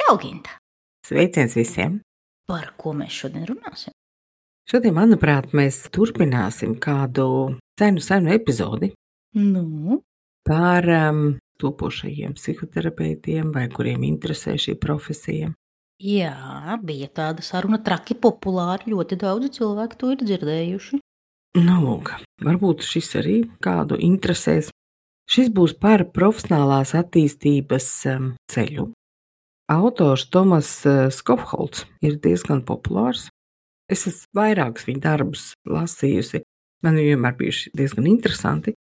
Čau, Ginta! Sveiciens visiem! Par ko mēs šodien runāsim? Šodien, manuprāt, mēs turpināsim kādu senu epizodi Nu, par topošajiem psihoterapeitiem, vai kuriem interesē šī profesija. jā, bija tāda saruna traki populāra, ļoti daudzi cilvēki to ir dzirdējuši. Nu, lūk, varbūt šis arī kādu interesēs. Šis būs par profesionālās attīstības ceļu. Autors Tomas Skofholts ir diezgan populārs. Es esmu vairākus viņa darbus lasījusi. Man viņi vienmēr bijuši diezgan interesanti.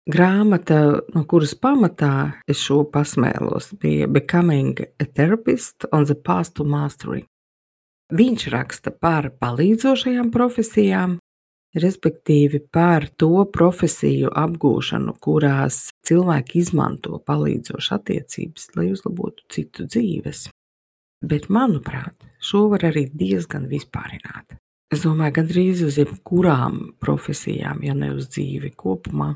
Grāmata, no kuras pamatā es šo pasmēlos, bija Becoming a Therapist on the Path to Mastery. Viņš raksta par palīdzošajām profesijām, respektīvi par to profesiju apgūšanu, kurās cilvēki izmanto palīdzošas attiecības, lai uzlabotu citu dzīves. Bet, manuprāt, šo var arī diezgan vispārināt. Es domāju, gandrīz uz jebkurām profesijām, ja ne uz dzīvi kopumā,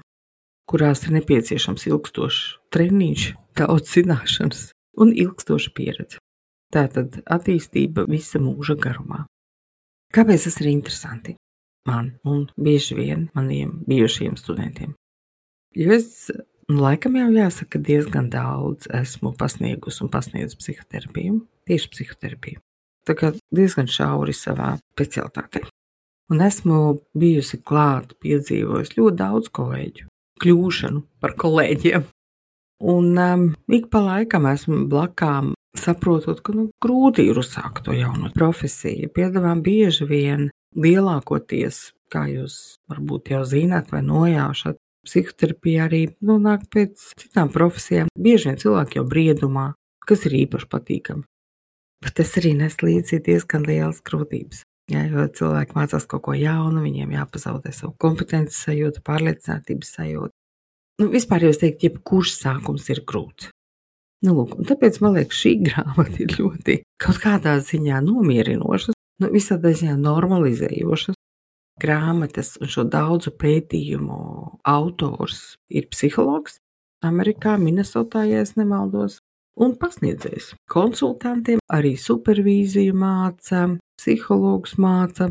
kurās ir nepieciešams ilgstošs treniņš, daudz zināšanas un ilgstoša pieredze. Tātad attīstība visa mūža garumā. Kāpēc tas ir interesanti man un bieži vien maniem bijušajiem studentiem? Jo es, laikam jau jāsaka, diezgan daudz esmu pasniegusi un pasniedzu psihoterapiju, tieši psihoterapiju. Tā kā diezgan šauri savā specialitātē. Un esmu bijusi klāt, piedzīvojusi ļoti daudz kolēģu kļūšanu par kolēģiem. Un ik pa laikam esmu blakām saprotot, ka grūti ir uzsākt to jaunu profesiju. Piedāvām bieži vien lielākoties, kā jūs varbūt jau zināt vai nojaušat, psihoterapija arī nāk pēc citām profesijām. Bieži vien cilvēki jau briedumā, kas ir īpaši patīkami. Bet tas arī nes līdzi diezgan lielas grūtības. Ja, jo cilvēki mācās kaut ko jaunu, viņiem jāpazaudē savu kompetences sajūtu, pārliecinātības sajūtu. Vispār jau es teiktu, jebkurš sākums ir grūts. Lūk, un tāpēc man liekas, šī grāmata ir ļoti kaut kādā ziņā nomierinošas, visādā ziņā normalizējošas. Grāmatas un šo daudzu pētījumu autors ir psihologs Amerikā, Minnesotā, ja es nemaldos, un pasniedzējs. Konsultantiem arī supervīziju māca, psihologs māca,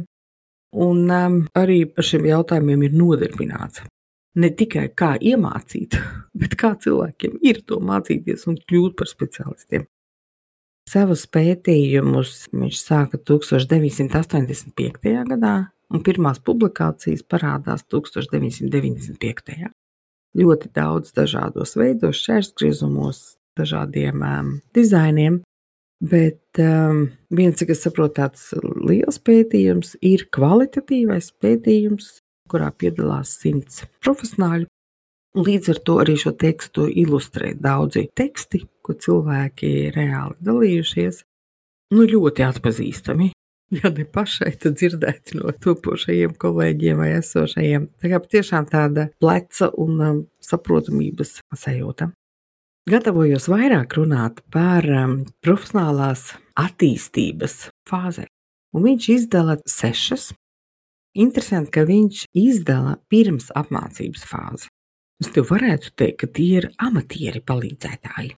un arī par šiem jautājumiem ir nodarbināts. Ne tikai kā iemācīt, bet kā cilvēkiem ir to mācīties un kļūt par speciālistiem. Savus pētījumus viņš sāka 1985. gadā, un pirmās publikācijas parādās 1995. Ļoti daudz dažādos veidos, šķērsgriezumos, dažādiem dizainiem, bet viens, cik es saprotu, tāds liels pētījums ir kvalitatīvais pētījums, kurā piedalās 100 profesionāļu. Līdz ar to arī šo tekstu ilustrē daudzi teksti, ko cilvēki reāli dalījušies. Ļoti atpazīstami, ja ne pašai, tad dzirdēti no topošajiem kolēģiem vai esošajiem. Tā kā patiešām tāda pleca un saprotamības sajūta. Gatavojos vairāk runāt par profesionālās attīstības fāzē. Un viņš izdala 6. Interesanti, ka viņš izdala pirms apmācības fāzi. Es tev varētu teikt, ka tie ir amatieri palīdzētāji.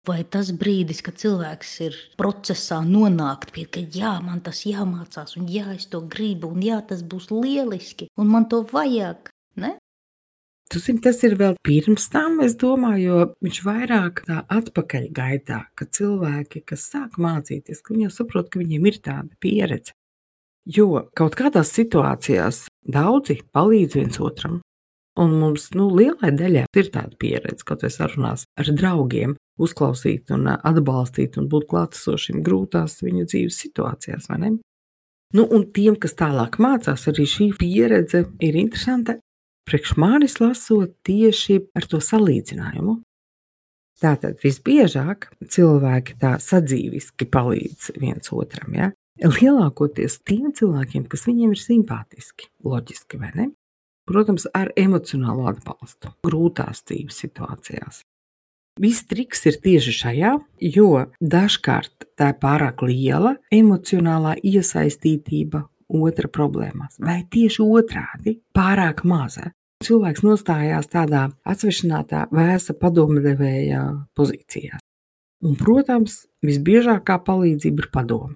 Vai tas brīdis, kad cilvēks ir procesā nonākt pie, ka jā, man tas jāmācās, un jā, es to gribu, un jā, tas būs lieliski, un man to vajag, ne? Tu zini, tas ir vēl pirms tam, es domāju, jo viņš vairāk tā atpakaļ gaitā, ka cilvēki, kas sāk mācīties, ka viņi jau saprot, ka viņiem ir tāda pieredze. Jo kaut kādās situācijās daudzi palīdz viens otram, un mums lielai daļai ir tāda pieredze, kaut vai sarunās ar draugiem, uzklausīt un atbalstīt un būt klātesošiem grūtās viņu dzīves situācijās, vai ne? Un tiem, kas tālāk mācās, arī šī pieredze ir interesanta. Priekš manis lasot tieši ar to salīdzinājumu. Tātad visbiežāk cilvēki tā sadzīviski palīdz viens otram, ja? Lielākoties tiem cilvēkiem, kas viņiem ir simpātiski, loģiski, vai ne? Protams, ar emocionālu atbalstu, grūtās dzīves situācijās. Viss triks ir tieši šajā, jo dažkārt tā ir pārāk liela emocionālā iesaistītība otra problēmās, vai tieši otrādi pārāk maza. Cilvēks nostājās tādā atsvešinātā, vēsa padomdevēja pozīcijā. Un, protams, visbiežākā palīdzība ir padome.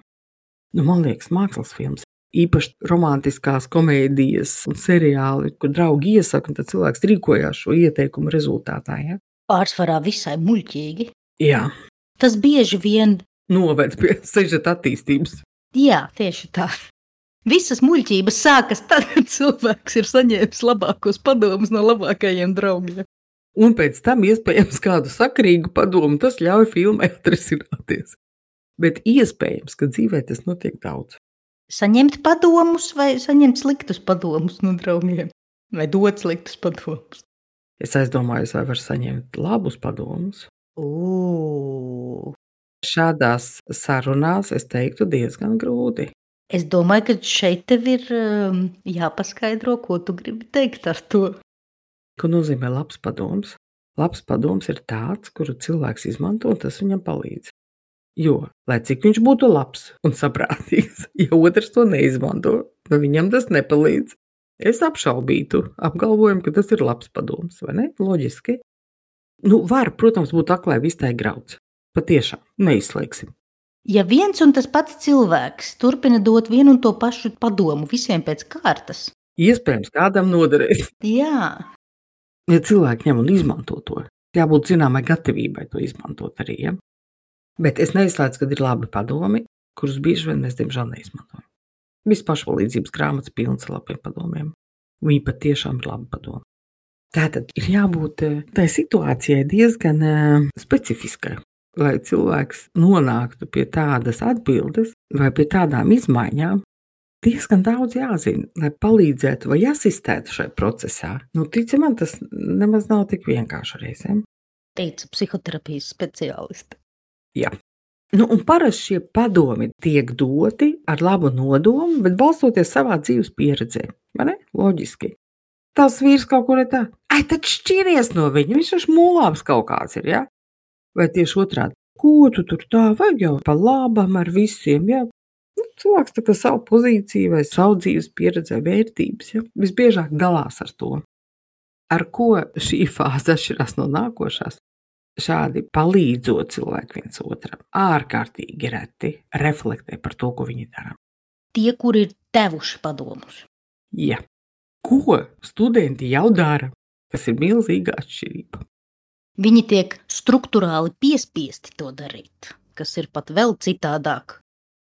Man liekas, mākslas filmas, īpaši romantiskās komēdijas un seriāli, kur draugi iesaka, un tad cilvēks rīkojās šo ieteikumu rezultātā. Ja? Pārsvarā visai muļķīgi. Jā. Tas bieži vien noved pie sižeta attīstības. Jā, tieši tā. Visas muļķības sākas tad, kad cilvēks ir saņēmis labākos padomus no labākajiem draugiem. Un pēc tam iespējams kādu sakarīgu padomu, tas ļauj filmai atrisināties. Bet iespējams, ka dzīvē tas notiek daudz. Saņemt padomus vai saņemt sliktus padomus no draugiem? Vai dot sliktus padomus? Es aizdomājos, vai var saņemt labus padomus. Šādās sarunās es teiktu diezgan grūti. Es domāju, ka šeit tev ir jāpaskaidro, ko tu gribi teikt ar to. Ko nozīmē labs padoms? Labs padoms ir tāds, kuru cilvēks izmanto, un tas viņam palīdz. Jo, lai cik viņš būtu labs un saprātīgs, ja otrs to neizmanto, tad viņam tas nepalīdz. Es apšaubītu apgalvojumu, ka tas ir labs padoms, vai ne? Loģiski. Var, protams, būt aklai vistai grauds. Patiešām, neizslēgsim. Ja viens un tas pats cilvēks turpina dot vienu un to pašu padomu visiem pēc kārtas. Iespējams, kādam noderēs. Jā. Ja cilvēki ņem un izmanto to, jābūt zināmai gatavībai to izmantot arī, ja? Bet es neizslēdzu, ka ir labi padomi, kurus bieži vien mēs, diemžēl, neizmantojam. Viss pašpalīdzības grāmatas pilns ar labiem padomiem. Viņi patiešām ir labi padomi. Tātad ir jābūt tai situācijai diezgan specifiskai, lai cilvēks nonāktu pie tādas atbildes vai pie tādām izmaiņām, diezgan daudz jāzina, lai palīdzētu vai asistētu šai procesā. Tici man, tas nemaz nav tik vienkārši reizēm. Teica psihoterapijas speciālisti. Jā. Un parasti šie padomi tiek doti ar labu nodomu, bet balstoties savā dzīves pieredzē. Vai ne? Loģiski. Tas vīrs kaut kur ir tā, tad šķiries no viņa, viņš taču mūlāms kaut kāds ir, ja? Vai tieši otrādi, ko tu tur tā, vajag jau pa labam ar visiem, ja? Cilvēks tā kā savu pozīciju vai savu dzīves pieredzē vērtības, ja? Visbiežāk dalās ar to. Ar ko šī fāze atšķirās no nākošās? Šādi palīdzot cilvēku viens otram, ārkārtīgi reti reflektē par to, ko viņi dara. Tie, kuri ir devuši padomus. Jā. Ko studenti jau dara, kas ir milzīga atšķirība. Viņi tiek strukturāli piespiesti to darīt, kas ir pat vēl citādāk.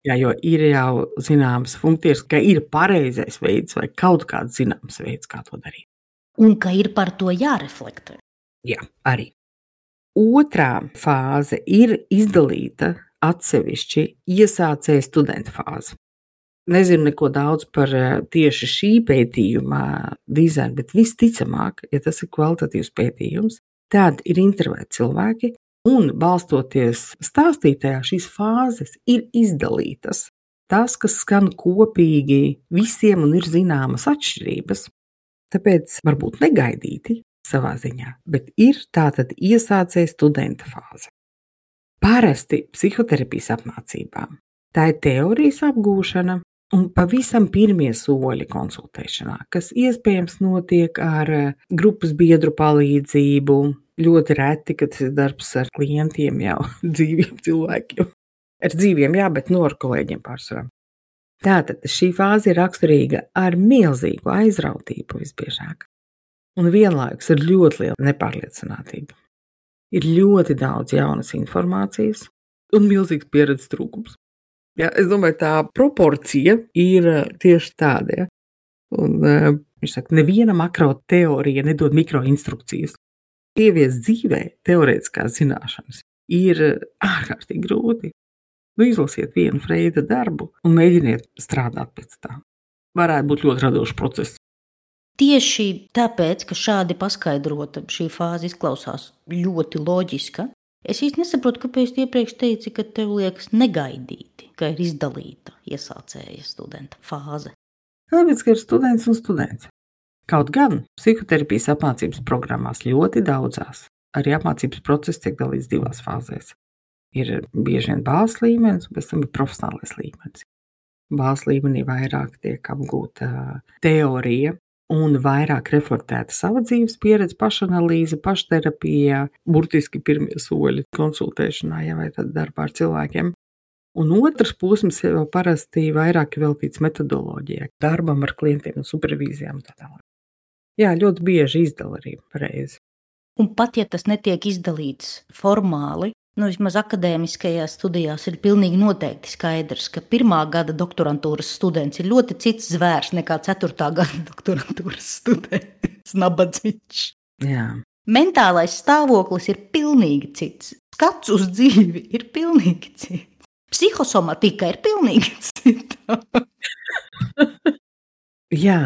Jā, jo ir jau zināmas funkcijas, ka ir pareizais veids vai kaut kāds zināms veids, kā to darīt. Un ka ir par to jāreflektē. Jā, arī. Otrā fāze ir izdalīta atsevišķi iesācēja studenta fāze. Nezinu neko daudz par tieši šī pētījuma dizainu, bet visticamāk, ja tas ir kvalitatīvs pētījums, tad ir intervēti cilvēki un balstoties stāstītajā šīs fāzes ir izdalītas. Tas, kas skan kopīgi visiem un ir zināmas atšķirības, tāpēc varbūt negaidīti savā ziņā, bet ir tātad iesācēja studenta fāze. Parasti psihoterapijas apmācībām tā ir teorijas apgūšana un pavisam pirmie soļi konsultēšanā, kas iespējams notiek ar grupas biedru palīdzību, ļoti reti, kad tas ir darbs ar klientiem jau dzīviem cilvēkiem. Ar dzīviem, jā, bet ar kolēģiem pārsvarā. Tātad šī fāze ir raksturīga ar milzīgu aizrautību visbiežāk. Un vienlaikus ir ļoti liela nepārliecinātība. Ir ļoti daudz jaunas informācijas un milzīgs pieredzes trūkums. Ja, es domāju, tā proporcija ir tieši tāda. Ja? Un, viņš saka, neviena makro teorija nedod mikroinstrukcijas. Ieviest dzīvē teorētiskās zināšanas ir ārkārtīgi grūti. Izlasiet vienu Freida darbu un mēģiniet strādāt pēc tā. Varētu būt ļoti radošs process. Tieši tāpēc, ka šādi paskaidrota šī fāze izklausās ļoti loģiska, es īsti nesaprotu, kāpēc iepriekš teici, ka tev liekas negaidīti, ka ir izdalīta iesācēja studenta fāze. Tāpēc, ka ir students un students. Kaut gan psihoterapijas apmācības programmās ļoti daudzās, arī apmācības process tiek dalīts divās fāzēs. Ir bieži vien bāzes līmenis, un pēc tam ir profesionālais līmenis. Bāzes līmenī vairāk tiek apgūta teorija, un vairāk reflektēta sava dzīves pieredze, pašanalīze, pašterapija, burtiski pirmie soļi konsultēšanā, ja vai tad darbā ar cilvēkiem. Un otrs posms jau parasti vairāk veltīts metodoloģijai, darbam ar klientiem un supervīzijām un tā tālāk. Jā, ļoti bieži izdala arī pareizi. Un pat ja tas netiek izdalīts formāli, vismaz akadēmiskajās studijās ir pilnīgi noteikti skaidrs, ka 1. gada doktorantūras students ir ļoti cits zvērs nekā 4. gada doktorantūras students, nabadzīgs. Jā. Mentālais stāvoklis ir pilnīgi cits. Skats uz dzīvi ir pilnīgi cits. Psihosomatika ir pilnīgi cita. Jā,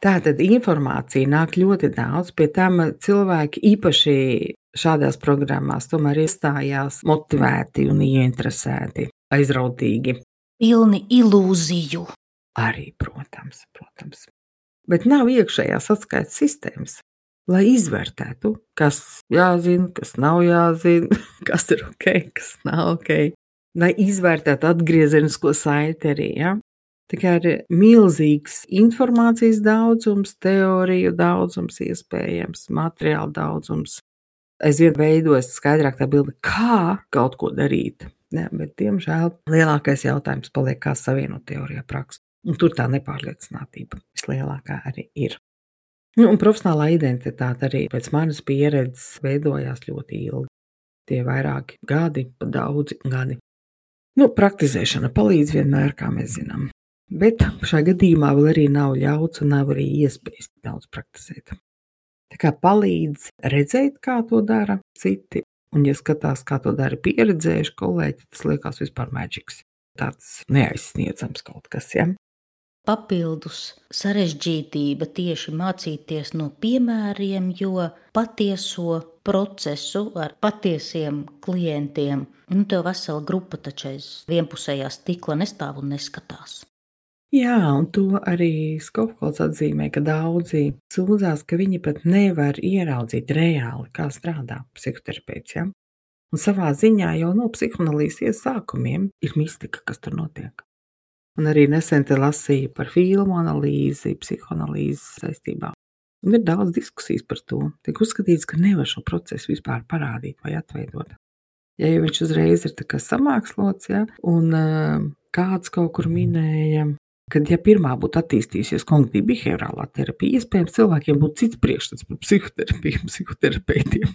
tātad informācija nāk ļoti daudz, pie tam cilvēki īpaši šādās programmās tomēr iestājās motivēti un ieinteresēti, aizrautīgi. Pilni ilūziju. Arī, protams. Bet nav iekšējās atskaites sistēmas, lai izvērtētu, kas jāzina, kas nav jāzina, kas ir ok, kas nav ok. Lai izvērtētu atgriezenisko saiti arī, ja? Tā kā ir milzīgs informācijas daudzums, teoriju daudzums iespējams, materiālu daudzums. Aizvien veidojas skaidrāk tā bilde, kā kaut ko darīt. Ja, bet, diemžēl, lielākais jautājums paliek, kā savienot teorijā praksi. Un tur tā nepārliecinātība vislielākā arī ir. Un profesionālā identitāte arī pēc manas pieredzes veidojās ļoti ilgi. Tie vairāki gadi, pat daudzi gadi. Praktizēšana palīdz vienmēr, kā mēs zinām. Bet šajā gadījumā vēl arī nav ļauts un nav arī iespējas daudz praktizēt. Tā kā palīdz redzēt, kā to dara citi, un ja skatās, kā to dara pieredzējuši kolēģi, tas liekas vispār maģiks. Tāds neaizsniedzams kaut kas, ja? Papildus sarežģītība tieši mācīties no piemēriem, jo patieso procesu ar patiesiem klientiem, tev vesela grupa taču aiz vienpusējā stikla nestāv un neskatās. Jā, un to arī Skofholds atzīmē, ka daudzi sūdzās, ka viņi pat nevar ieraudzīt reāli, kā strādā psihoterapeits, ja? Un savā ziņā jau no psihoanalīzes sākumiem ir mistika, kas tur notiek. Un arī nesen te lasīju par filmu analīzi, psihoanalīzes saistībā. Un ir daudz diskusijas par to. Tiek uzskatīts, ka nevar šo procesu vispār parādīt vai atveidot. Ja jau viņš uzreiz ir tā kā samākslots, ja, un kāds kaut kur minēja, kad ja pirmā būtu attīstījusies kognitīva behaviorālā terapija, iespējams cilvēkiem būtu cits priekšstats par psihoterapiju, psihoterapeitiem.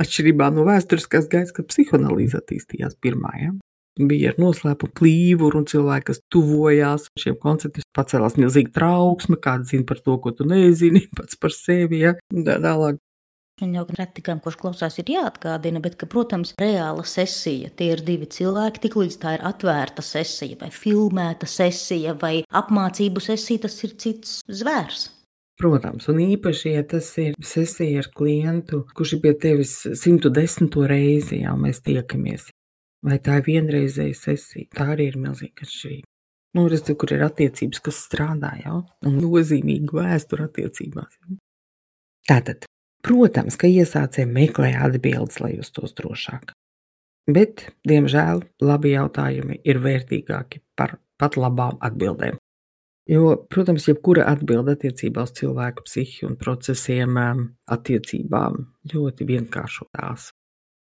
Atšķirībā no vēsturiskās gaitas, kad psihoanalīze attīstījās pirmā, ja. Bija ar noslēpu klīvuru un cilvēki, kas tuvojās šiem konceptiem, pacēlās milzīga trauksme, kāda zina par to, ko tu nezini, pats par sevi, ja, un tā tālāk. Un jau retikām, kurš klausās, ir jāatgādina, bet, ka, protams, reāla sesija, tie ir divi cilvēki, tik līdz tā ir atvērta sesija, vai filmēta sesija, vai apmācību sesija, tas ir cits zvērs. Protams, un īpaši, ja tas ir sesija ar klientu, kurš ir pie tevis 110. reizi, jau mēs tiekamies. Vai tā ir vienreizēja sesija, tā arī ir milzīga atšķirība. Redz, kur ir attiecības, kas strādā, jau, un nozīmīga vēstura attiecībās. Jau. Tātad, protams, ka iesācēji meklē atbildes, lai justos drošāk. Bet, diemžēl, labi jautājumi ir vērtīgāki par pat labām atbildēm. Jo, protams, jebkura atbilde attiecībā uz cilvēku psihi un procesiem attiecībām ļoti vienkāršo tās.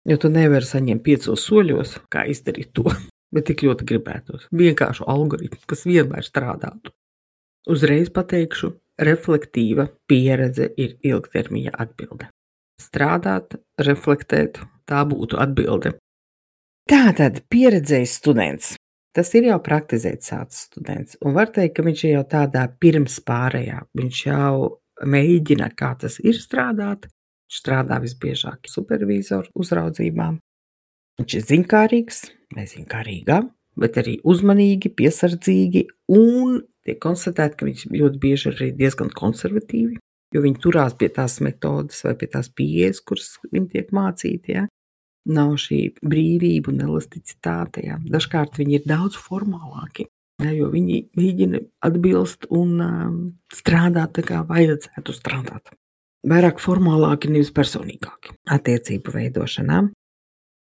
Jo tu nevari saņemt 5 soļos, kā izdarīt to, bet tik ļoti gribētos. Vienkāršu algoritmu, kas vienmēr strādātu. Uzreiz pateikšu, reflektīva pieredze ir ilgtermiņa atbilde. Strādāt, reflektēt, tā būtu atbilde. Tātad pieredzējis students. Tas ir jau praktizēt sācis students. Un var teikt, ka viņš ir jau tādā pirms pārējā. Viņš jau mēģina, kā tas ir strādāt. Strādā visbiežāk supervīzoru uzraudzībām. Viņš ir ziņkārīgs vai ziņkārīgā, bet arī uzmanīgi, piesardzīgi un tiek konstatēt, ka viņš ļoti bieži arī diezgan konservatīvi, jo viņi turās pie tās metodas vai pie tās pieejas, kuras viņi tiek mācīti, ja. Nav šī brīvība un elasticitāte, ja. Dažkārt viņi ir daudz formālāki, ja, jo viņi mēģina atbilst un strādāt tā kā vajadzētu strādāt. Vairāk formālāki, nevis personīgāki attiecību veidošanā.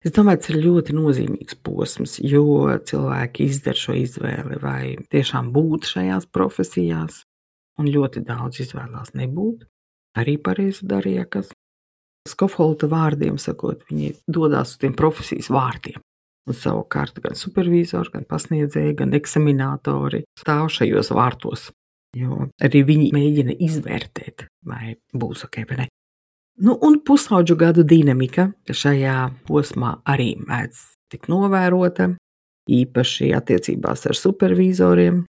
Es domāju, tas ir ļoti nozīmīgs posms, jo cilvēki izdara šo izvēli vai tiešām būt šajās profesijās un ļoti daudz izvēlās nebūt. Arī pareizi darīja, kas Skofholta vārdiem sakot, viņi dodās uz tiem profesijas vārtiem. Un savukārt gan supervizori, gan pasniedzēji, gan eksaminatori stāv šajos vārtos, jo arī viņi mēģina izvērtēt, vai būs ok vai ne. Nu, un pusaudžu gadu dinamika šajā posmā arī mēdz tik novērota, īpaši attiecībās ar supervizoriem,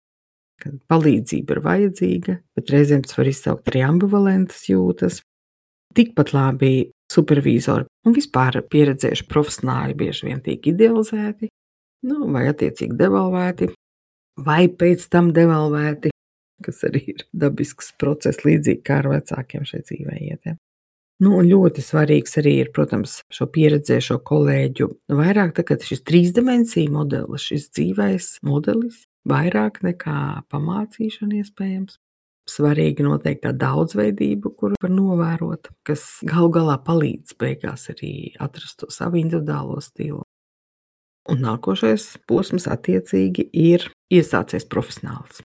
kad palīdzība ir vajadzīga, bet reizēm tas var izsaukt arī ambivalentas jūtas. Tikpat labi supervizori un vispār pieredzējuši profesionāļi bieži vien tiek idealizēti, vai attiecīgi devalvēti, vai pēc tam devalvēti, kas arī ir dabisks process līdzīgi kā ar vecākiem šeit dzīvē iet. Un ļoti svarīgs arī ir, protams, šo pieredzējušo kolēģu vairāk tagad šis trīsdimensiju modelis, šis dzīvais modelis, vairāk nekā pamācīšana iespējams. Svarīgi noteikti tā daudzveidība, kuru var novērot, kas galu galā palīdz beigās arī atrast to savu individuālo stilu. Un nākošais posms attiecīgi ir iesācies profesionāls.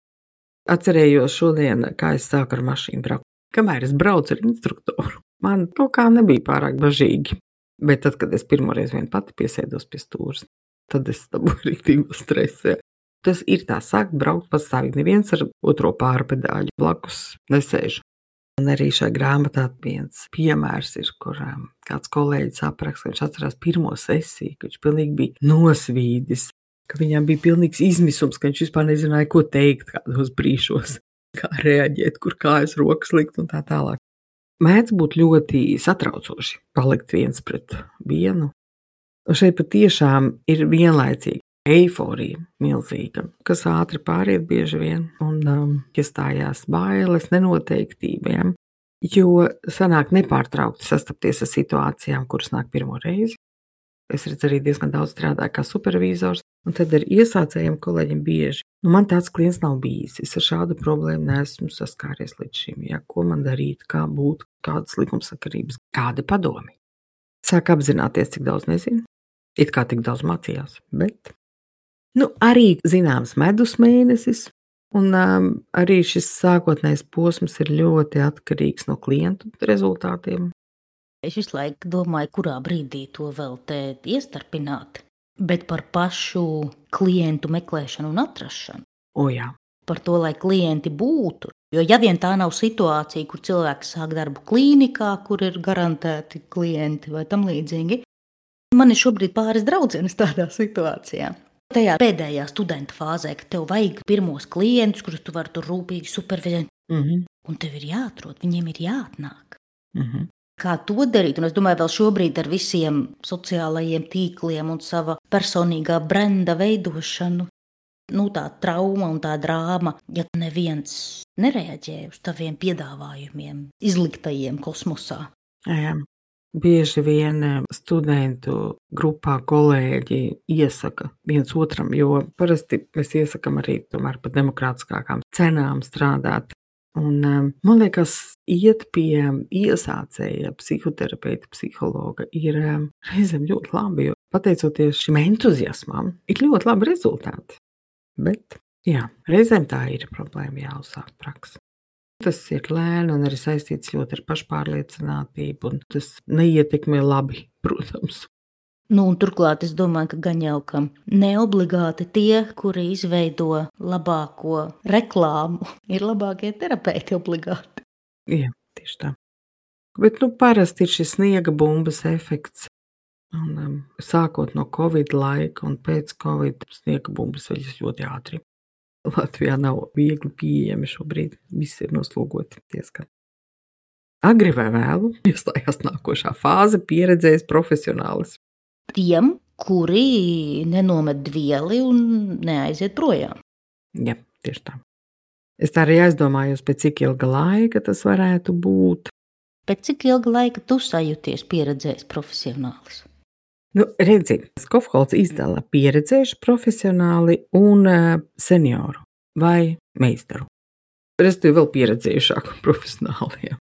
Atcerējos šodien, kā es sāku ar mašīnu braukt. Kamēr es braucu ar instruktoru, man kaut kā nebija pārāk bažīgi. Bet tad, kad es pirmoreiz vien pati piesēdos pie stūres, tad es dabūju rīktīgu stresu. Tas ir tā sākt braukt pastāvīgi, neviens ar otro pārpedāļu blakus nesēž. Un arī šajā grāmatā viens piemērs ir, kur kāds kolēģis apraksta, ka viņš atcerās pirmo sesiju, ka viņš pilnīgi bija nosvīdis, ka viņam bija pilnīgs izmisums, ka viņš vispār nezināja, ko teikt kādos brīžos, kā reaģēt, kur kājas rokas likt un tā tālāk. Mēdz būt ļoti satraucoši palikt viens pret vienu. Un šeit patiešām ir vienlaicīgi eiforija milzīga, kas ātri pāriet bieži vien un iestājās bailes, nenoteiktība, jo sanāk nepārtraukti sastapties ar situācijām, kuras nāk pirmo reizi. Es redzu arī diezgan daudz strādāju kā supervizors, un tad ar iesācējiem kolēģiem bieži. Man tāds klients nav bijis, es ar šādu problēmu neesmu saskāries līdz šim, ko man darīt, kā būt, kādas likumsakarības, kādi padomi. Sāk apzināties, cik daudz nezinu, it kā tik daudz mācījās, bet arī zināms medus mēnesis, un arī šis sākotnējs posms ir ļoti atkarīgs no klientu rezultātiem. Es visu laiku domāju, kurā brīdī to vēl te iestarpināt, bet par pašu klientu meklēšanu un atrašanu. Jā. Par to, lai klienti būtu. Jo ja vien tā nav situācija, kur cilvēks sāk darbu klīnikā, kur ir garantēti klienti vai tam līdzīgi, man ir šobrīd pāris draudzenes tādā situācijā. Tajā pēdējā studenta fāzē, ka tev vajag pirmos klientus, kurus tu vari tur rūpīgi supervizēt. Un tev ir jāatrod, viņiem ir jāatnāk. Kā to darīt? Un es domāju, vēl šobrīd ar visiem sociālajiem tīkliem un sava personīgā brenda veidošanu, tā trauma un tā drāma, ja neviens nereaģē uz taviem piedāvājumiem, izliktajiem kosmosā. Jā. Bieži vien studentu grupā kolēģi iesaka viens otram, jo parasti mēs iesakam arī tomēr par demokrātiskākām cenām strādāt. Un, man liekas, iet pie iesācēja psihoterapeita, psihologa ir reizēm ļoti labi, jo pateicoties šim entuziasmam, ir ļoti labi rezultāti. Bet, reizēm tā ir problēma jāuzsāk praksa. Tas ir lēni un arī saistīts ļoti ar pašpārliecinātību, un tas neietekmē labi, protams. Un turklāt es domāju, ka gan jau ka neobligāti tie, kuri izveido labāko reklāmu, ir labākie terapeiti obligāti. Jā, tieši tā. Bet parasti ir šis sniega bumbas efekts. Un, sākot no Covid laika un pēc Covid sniega bumbas veļas ļoti ātri. Latvijā nav viegli pieejami šobrīd, viss ir noslogoti diezgan. Agri vai vēlu iestājās nākošā fāze pieredzējis profesionālis. Tiem, kuri nenomet dvieli un neaiziet projām. Jā, tieši tā. Es tā arī aizdomājos, pēc cik ilga laika tas varētu būt. Pēc cik ilga laika tu sajūties pieredzējis profesionālis? Redzi, Skofholts izdala pieredzējuši profesionāli un senioru vai meistaru. Respektīvi vēl pieredzējušāku profesionāliem.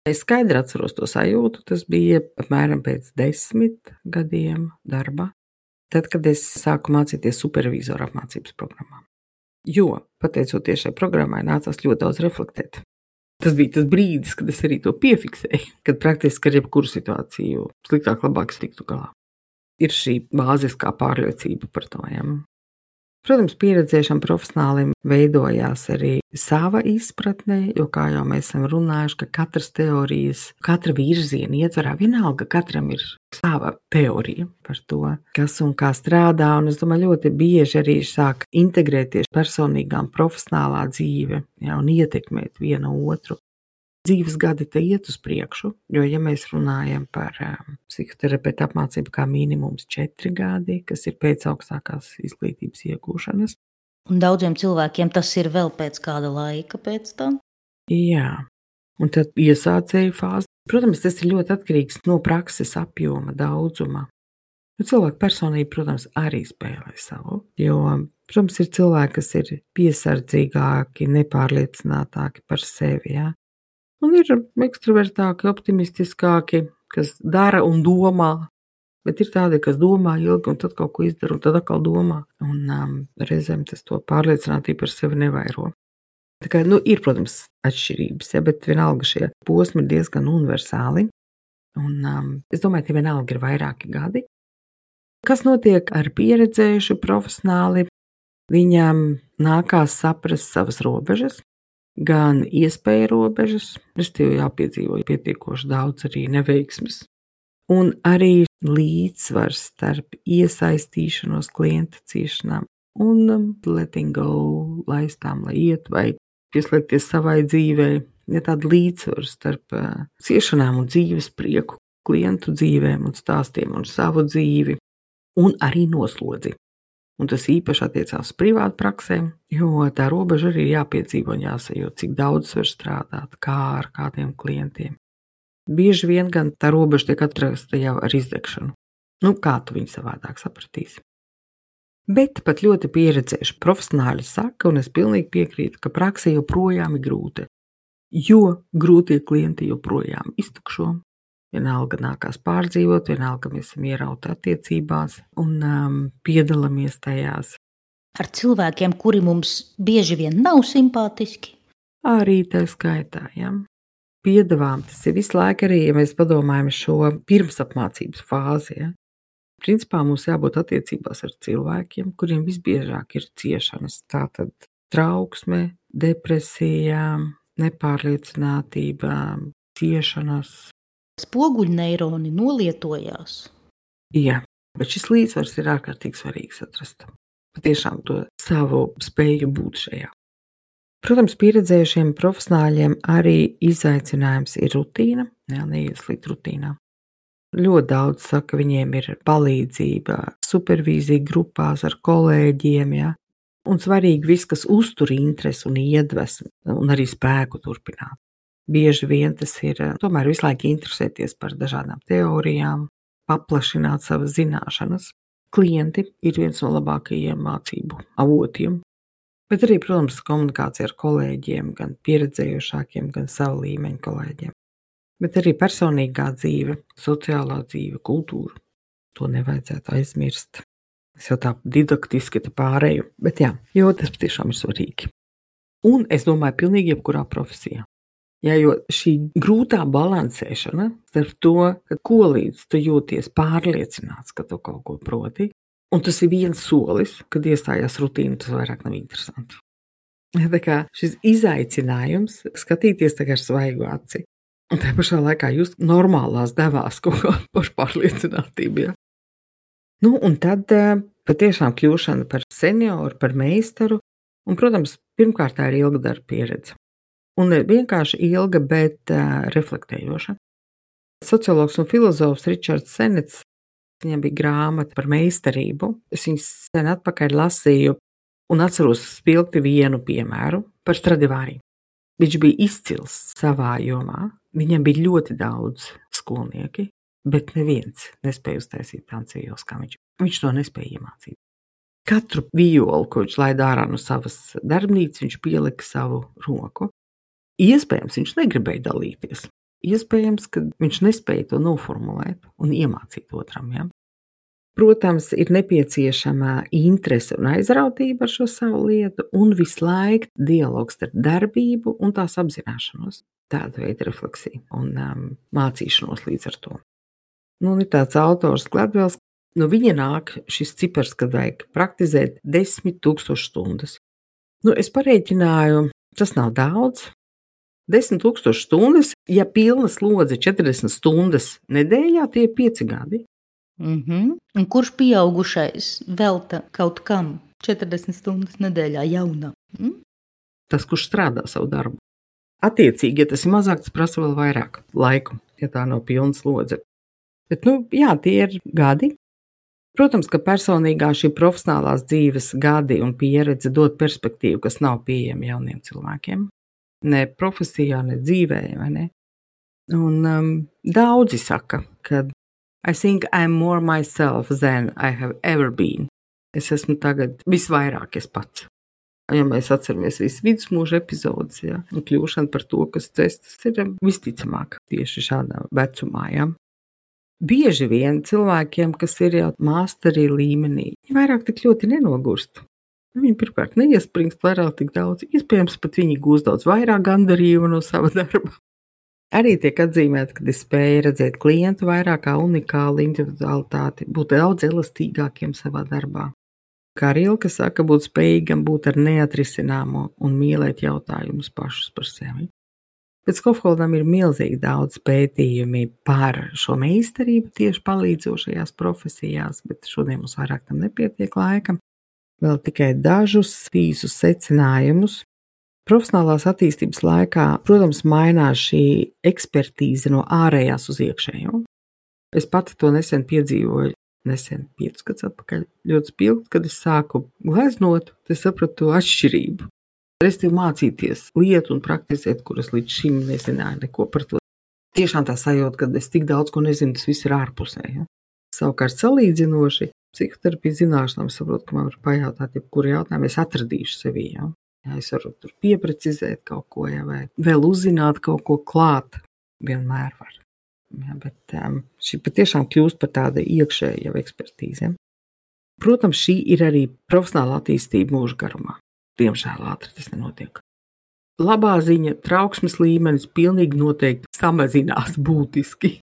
Es skaidri atceros to sajūtu, tas bija apmēram pēc 10 gadiem darba, tad, kad es sāku mācīties supervizoru apmācības programmā. Jo, pateicoties šai programmai, nācās ļoti daudz reflektēt. Tas bija tas brīdis, kad es arī to piefiksēju, kad praktiski ar jebkuru situāciju sliktāk, labāk es tiktu galā. Ir šī bāziskā pārliecība par to. Ja? Protams, pieredzējušam profesionālim veidojās arī sava izpratne, jo, kā jau mēs esam runājuši, ka katras teorijas, katra virziena ietvarā vienalga, katram ir sava teorija par to, kas un kā strādā, un es domāju, ļoti bieži arī sāk integrēties personīgā un profesionālā dzīve, ja, un ietekmēt vienu otru. Dzīves gadi te iet uz priekšu, jo, ja mēs runājam par psihoterapeitu apmācību kā minimums 4 gadi, kas ir pēc augstākās izglītības iegūšanas. Un daudziem cilvēkiem tas ir vēl pēc kāda laika pēc tam? Jā, un tad iesācēju fāzi. Protams, tas ir ļoti atkarīgs no prakses apjoma, daudzuma. Cilvēka personība, protams, arī spēlē savu, jo, protams, ir cilvēki, kas ir piesardzīgāki, nepārliecinātāki par sevi, jā. Un ir ekstravertāki, optimistiskāki, kas dara un domā, bet ir tādi, kas domā ilgi un tad kaut ko izdara un tad atkal domā. Un reizēm tas to pārliecinātību par sevi nevairo. Tā kā, ir, protams, atšķirības, ja, bet vienalga šie posmi ir diezgan universāli. Un es domāju, ka vienalga ir vairāki gadi. Kas notiek ar pieredzējušu profesionāli? Viņam nākās saprast savas robežas, gan iespēju robežas, respektīvi jāpiedzīvo pietiekoši daudz arī neveiksmes, un arī līdzsvars starp iesaistīšanos klienta ciešanām un letting go, laistām, lai iet vai pieslēgties savai dzīvei, ja tāda līdzsvars starp ciešanām un dzīves prieku, klientu dzīvēm un stāstiem un savu dzīvi, un arī noslodzi. Un tas īpaši attiecās uz privātu praksēm, jo tā robeža arī ir jāpiedzīvo un jāsajūt, cik daudz var strādāt, kā ar kādiem klientiem. Bieži vien gan tā robeža tiek atrasta jau ar izdegšanu. Kā tu viņu savādāk sapratīsi? Bet pat ļoti pieredzējuši profesionāļi saka, un es pilnīgi piekrītu, ka prakse joprojām ir grūta, jo grūtie klienti joprojām iztukšo. Vienalga nākās pārdzīvot, vienalga mēs esam ierauti attiecībās un piedalāmies tajās. Ar cilvēkiem, kuri mums bieži vien nav simpātiski? Arī tā skaitā, ja. Piedāvām, tas ir visu laiku arī, ja mēs padomājam šo pirmsapmācības fāzi, ja. Principā mums jābūt attiecībās ar cilvēkiem, kuriem visbiežāk ir ciešanas. Tātad trauksme, depresija, nepārliecinātība, ciešanas. Spoguļneironi nolietojās. Jā, bet šis līdzsvars ir ārkārtīgi svarīgs atrast. Patiešām to savu spēju būt šajā. Protams, pieredzējušiem profesionāļiem arī izaicinājums ir rutīna, neieslīgt rutīnā. Ļoti daudz saka, viņiem ir palīdzība, supervīzija grupās ar kolēģiem, ja? Un svarīgi viss, kas uztur interesi un iedvesmu un arī spēku turpināt. Bieži vien tas ir tomēr visu laiku interesēties par dažādām teorijām, paplašināt savas zināšanas. Klienti ir viens no labākajiem mācību avotiem, bet arī, protams, komunikācija ar kolēģiem, gan pieredzējušākiem, gan savu līmeņu kolēģiem. Bet arī personīgā dzīve, sociālā dzīve, kultūra. To nevajadzētu aizmirst. Es jau tā didaktiski te pārēju, bet jā, jo tas patiešām ir svarīgi. Un es domāju, pilnīgi jebkurā profesijā. Jā, jo šī grūtā balansēšana starp to, ka ko līdz tu jūties pārliecināts, ka tu kaut ko proti, un tas ir viens solis, kad iestājās rutīna, tas vairāk nav interesanti. Tā kā šis izaicinājums skatīties tā kā ar svaigu aci, un tā pašā laikā jūs normālās devās kaut kā pašpārliecinātību. Ja? Un tad patiešām kļūšana par senioru, par meistaru, un, protams, pirmkārt tā ir ilga darba pieredze. Un ne vienkārši ilga, bet reflektējoša. Sociologs un filozofs Ričards Senets, viņam bija grāmata par meistarību. Es viņu sen atpakaļ lasīju un atceros spilgti vienu piemēru par Stradivari. Viņš bija izcils savā jomā, viņam bija ļoti daudz skolnieki, bet neviens nespēja uztaisīt tādu ielas kā viņš. Viņš to nespēja iemācīt. Katru violu, ko viņš laida ārā no savas darbnīcas, viņš pielika savu roku. Iespējams, viņš negribēja dalīties. Iespējams, ka viņš nespēja to noformulēt un iemācīt otram. Ja? Protams, ir nepieciešama interese un aizrautība ar šo savu lietu, un visu laiku dialogs starp darbību un tās apzināšanos. Tāda veida refleksija un mācīšanos līdz ar to. Nu, ir tāds autors Gladwells, no viņa nāk šis cipars, kad vajag praktizēt 10,000 stundas. Nu, es parēķināju, tas nav daudz. 10,000 stundas, ja pilna slodze 40 stundas nedēļā, tie ir 5 gadi. Un kurš pieaugušais velta kaut kam 40 stundas nedēļā jaunam? Tas, kurš strādā savu darbu. Attiecīgi, ja tas ir mazāk, tas prasa vēl vairāk laiku, ja tā nav pilna slodze. Bet, jā, tie ir gadi. Protams, ka personīgā šī profesionālās dzīves gadi un pieredze dod perspektīvu, kas nav pieejama jauniem cilvēkiem. Ne profesijā, ne dzīvē, vai ne? Un daudzi saka, ka I think I'm more myself than I have ever been. Es esmu tagad visvairāk es pats. Ja mēs atceramies visu vidusmūža epizodes, ja, un kļūšanu par to, kas tas ir visticamāk tieši šādā vecumā. Ja. Bieži vien cilvēkiem, kas ir jau māsterī līmenī, viņi vairāk tik ļoti nenogurst. Viņi pirmkārt neiespringst vairāk tik daudz, iespējams pat viņi gūst daudz vairāk gandarījumu no sava darba. Arī tiek atzīmēta, ka es spēju redzēt klientu vairāk kā unikālu individualitāti, būt daudz elastīgākiem savā darbā. Kā Rilke saka, būt spējīgam būt ar neatrisināmo un mīlēt jautājumus pašus par sevi. Pēc Skofholdam ir milzīgi daudz pētījumi par šo meistarību tieši palīdzošajās profesijās, bet šodien mums vairāk tam nepietiek laika. Vēl tikai dažus īsus secinājumus. Profesionālās attīstības laikā, protams, mainās šī ekspertīze no ārējās uz iekšējo. Es pati to nesen piedzīvoju, 5 gadus atpakaļ, ļoti spilgt, kad es sāku gleznot, es sapratu to atšķirību. Restīvi mācīties lietu un praktizēt, kuras līdz šim nezināju neko par to. Tiešām tā sajūta, ka es tik daudz ko nezinu, tas viss ir ārpusē. Ja? Savukārt salīdzinoši, psihoterapijas zināšanām saprotu, ka man var pajautāt, jebkuru jautājumu es atradīšu sevī. Ja? Ja, es varu tur pieprecizēt kaut ko, ja, vai vēl uzzināt kaut ko klāt, vienmēr var. Ja, bet šī patiešām kļūst par tādu iekšēju jau ekspertīzi. Ja. Protams, šī ir arī profesionāla attīstība mūža garumā. Diemžēl ātri tas nenotiek. Labā ziņa, trauksmes līmenis pilnīgi noteikti samazinās būtiski.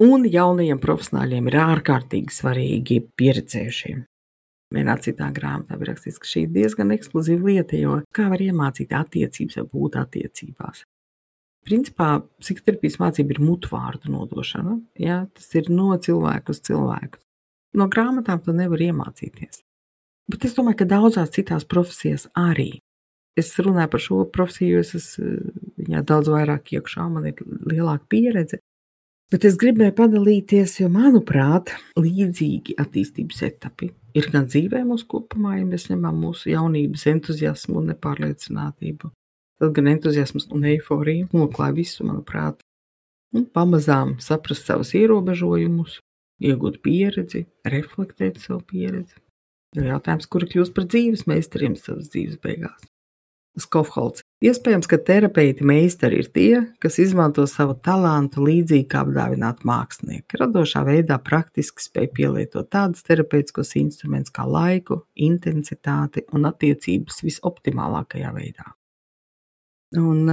Un jaunajiem profesionāļiem ir ārkārtīgi svarīgi pieredzējušiem. Vienā citā grāmatā ir rakstīts, ka šī ir diezgan ekskluzīva lieta, jo kā var iemācīt attiecības vai būt attiecībās. Principā, psihoterapijas mācība ir mutvārdu nodošana. Ja? Tas ir no cilvēku uz cilvēku. No grāmatām to nevar iemācīties. Bet es domāju, ka daudzās citās profesijās arī. Es runāju par šo profesiju, jo es esmu daudz vairāk iekšā, man ir lielāka pieredze. Bet es gribēju padalīties, jo, manuprāt, līdzīgi attīstības etapi ir gan dzīvē mūsu kopumā, ja mēs ņemam mūsu jaunības entuziasmu un nepārliecinātību. Tad gan entuziasms un eiforija noklāja visu, manuprāt. Un pamazām saprast savus ierobežojumus, iegūt pieredzi, reflektēt savu pieredzi. Ir jautājums, kuri kļūst par dzīves meistariem savas dzīves beigās. Skofholds. Iespējams, ka terapeiti meistari ir tie, kas izmanto savu talantu līdzīgi kā apdāvināti mākslinieki. Radošā veidā praktiski spēj pielietot tādus terapeitiskos instrumentus kā laiku, intensitāti un attiecības visoptimālākajā veidā. Un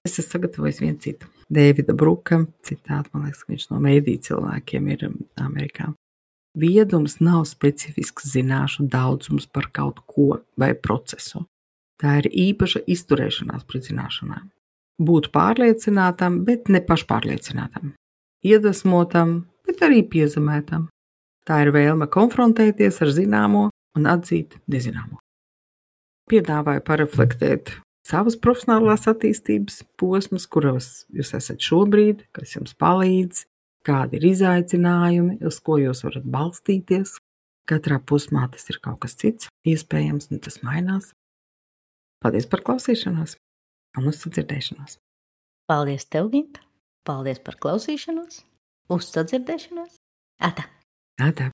es esmu sagatavojis vienu citu. Davida Bruka citātu, man liekas, ka viņš no mēdī cilvēkiem ir Amerikā. Viedums nav specifisks zināšu daudzums par kaut ko vai procesu. Tā ir īpaša izturēšanās pret zināšanām. Būt pārliecinātam, bet ne pašpārliecinātam. Iedvesmotam, bet arī piezemētam. Tā ir vēlme konfrontēties ar zināmo un atzīt nezināmo. Piedāvāju pareflektēt savas profesionālās attīstības posmus, kuros jūs esat šobrīd, kas jums palīdz, kādi ir izaicinājumi, uz ko jūs varat balstīties. Katrā posmā tas ir kaut kas cits, iespējams, un tas mainās. Paldies par klausīšanos un uz sadzirdēšanos. Paldies tev, Ginta. Paldies par klausīšanos. Uz sadzirdēšanos. Ata. Ata.